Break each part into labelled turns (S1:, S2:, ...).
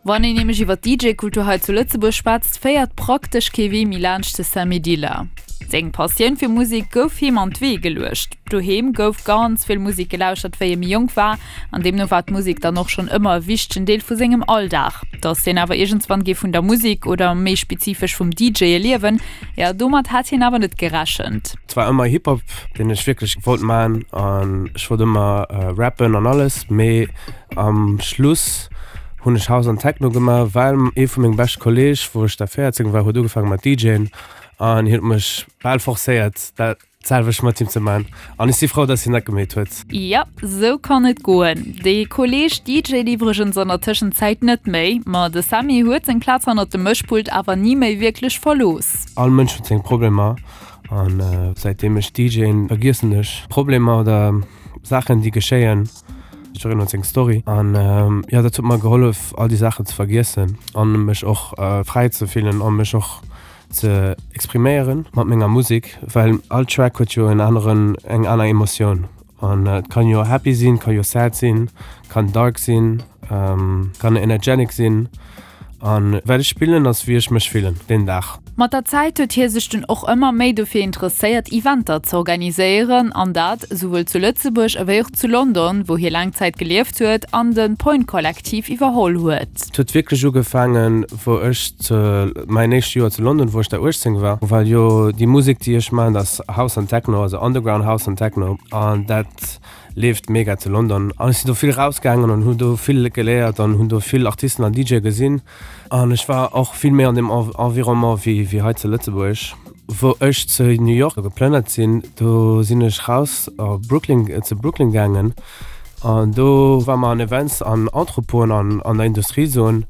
S1: Wann een nämlech iwwer d'DJ-Kultur hei zu Lëtzebuerg schwätzt, féiert praktesch kee Wee méi laanscht de Samy Dilla. Seng Passioun fir Musek gouf him an d'Wee geluecht. Doheem gouf ganz vill Musek gelauschtert, wéi e méi jonk war, an deemno war d'Musek dann och schonn ëmmer e wichtegen Deel vu sengem Alldag. Dass hien awer iergendswann géif vun der Musek oder méi spezifesch vum DJe liewen, jo domat hat hien awer net gerechent.
S2: Et war ëmmer Hip-Hop, deen ech wierklech wollt man an ech wollt ëmmer rappen an alles, mee Am Schluss hunn ech House an Techno gemaach, well ee vu mengem beschte Kolleg, wou ech da 14 war, huet ugefaange mat DJen an hien huet mech bal forcéiert dat selwecht mat him ze man an ech si frou, dass hien dat gemeet huet.
S1: Jap, sou kann et goen. Dee Kolleg DJt iwwregens an der Tëschenzäit net méi, ma de Sammy huet seng Plaz hannert dem Mëschpult awer ni méi wierklech verlooss.
S2: All Mënsch huet seng Problemer an säitdeem ech DJen, vergiessen ech Problemer oder Saachen déi geschéien. Jiddereen huet seng Story an jo dat huet mer gehollef all déi Saachen ze vergiessen an mech och fräi ze fillen an mech och ze expriméieren mat menger Musek, well all Track huet jo en aneren eng aner Emotioun an et kann jo happy sinn, kann jo sad sinn, kann dark sinn, kann energetic sinn. An wat ech spillen ass wéi ech mech fillen deen Dag.
S1: Mat der Zäit huet hie sech dunn och ëmmer méi dofir interesséiert Eventer z'organiséieren an dat esouwuel zu Lëtzebuerg ewéi och zu London, wou hie laang Zäit gelieft huet an de Point Kollektiv iwwerholl huet.
S2: Et huet wierklech ugefaangen wou ech zu mäin éischt Joer zu London, wou ech da 18 war, well jo déi Musek déi ech maachen, dat ass House an Techno, also Underground House an Techno an dat Leeft mega zu London an ech sinn do vill rausgaangen an hunn do vill geléiert an hunn do vill Artisten an DJe gesinn an ech war och vill méi an deem Environnement wéi wéi hei zu Lëtzebuerg. Wou ech zu New York geplënnert sinn, do sinn ech raus a Brooklyn zu Brooklyn gaangen an do war mer an Events an Entrepôten an an der Industriezon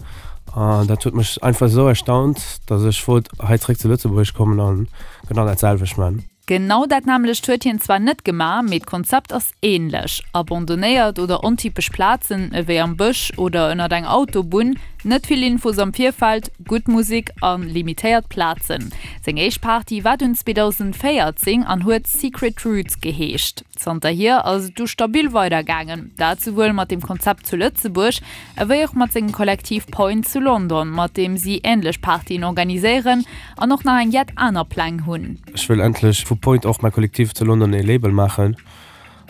S2: an dat huet mech einfach esou erstaunt, datt ech wollt hei zréck zu Lëtzebuerg kommen an genau dat selwecht man.
S1: Genau dat nämmlecht huet hien zwar net gemaach, mee d'Konzept ass änlech. Abandonnéiert oder ontypesch Plazen, ewéi am Bësch oder ënnert eng Autobunn, net vill Infos am Virfeld, gutt Musek a limitéiert Plazen. Seng éischt Party war dunn 2014 an huet Secret Roots geheescht. Zanterhier ass et du stabil weidergaangen, dat souwuel mat dem Konzept zu Lëtzebuerg, ewéi och mat sengem Kollektiv Point zu London, mat deem si änlech Partyen organiséieren an och nach eng jett aner Pläng hunn.
S2: Ech wëll endlech vu Point och mäi Kollektiv zu London ee Label maachen.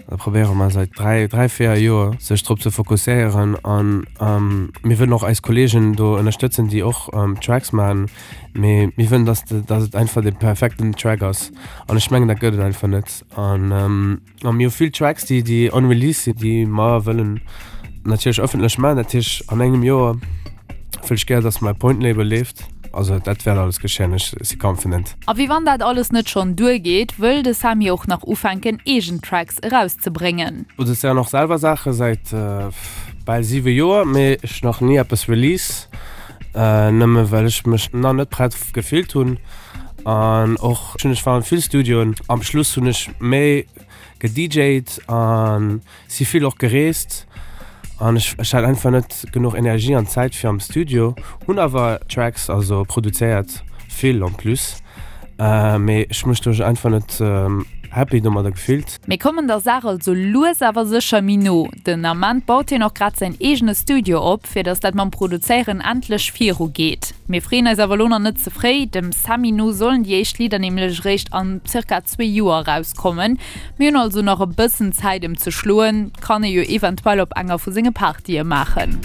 S2: Da probéiere mer säit 3, 3, 4 Joer sech drop ze fokusséieren an mir wëllen och eis Kollegen do ënnerstëtzen, déi och Tracks maachen, mee mir wëllen, dass dass et einfach dee perfekten Track ass an ech mengen dat gëtt et einfach net an. A mir hu vill Tracks, déi, déi unreleased sinn, déi mer wëllen natierlech ëffentlech maachen. Dat heescht, an engem Joer wëll ech gär, dass mäi Point Label leeft. Also dat wäert alles geschéien, ech si confident.
S1: A wéi wann dat alles net schonn duergeet, wëll de Samy och nach ufänken, eegen Tracks erauszebréngen.
S2: Produzéieren och selwer Saache säit bal 7 Joer, mee ech nach ni eppes release, nëmme well ech mech nach net prett gefillt hunn. An och hunn ech war an vill Studioen. Am Schluss hunn ech méi gedjt an si vill och gereest an ech ech hat einfach net genuch Energie an Zäit fir am Studio. Hunn awer Tracks also produzéiert, vill en plus, mee ech mech doduerch einfach net happy domadder gefillt.
S1: Mir kommen der Saach also lues awer sécher méi no. Den Ament baut hien och grad säin eegene Studio op, fir datt dat mam Produzéieren endlech viru geet. Mir freeën eis awer elo nach net ze fréi, dem Sammy no sollen déi éischt Lidder nämlech eréischt an zirka zwee Joer erauskommen. Mir hunn also nach e bëssen Zäit em ze schloen, kann ee jo eventuell op enger vu senge Partye maachen.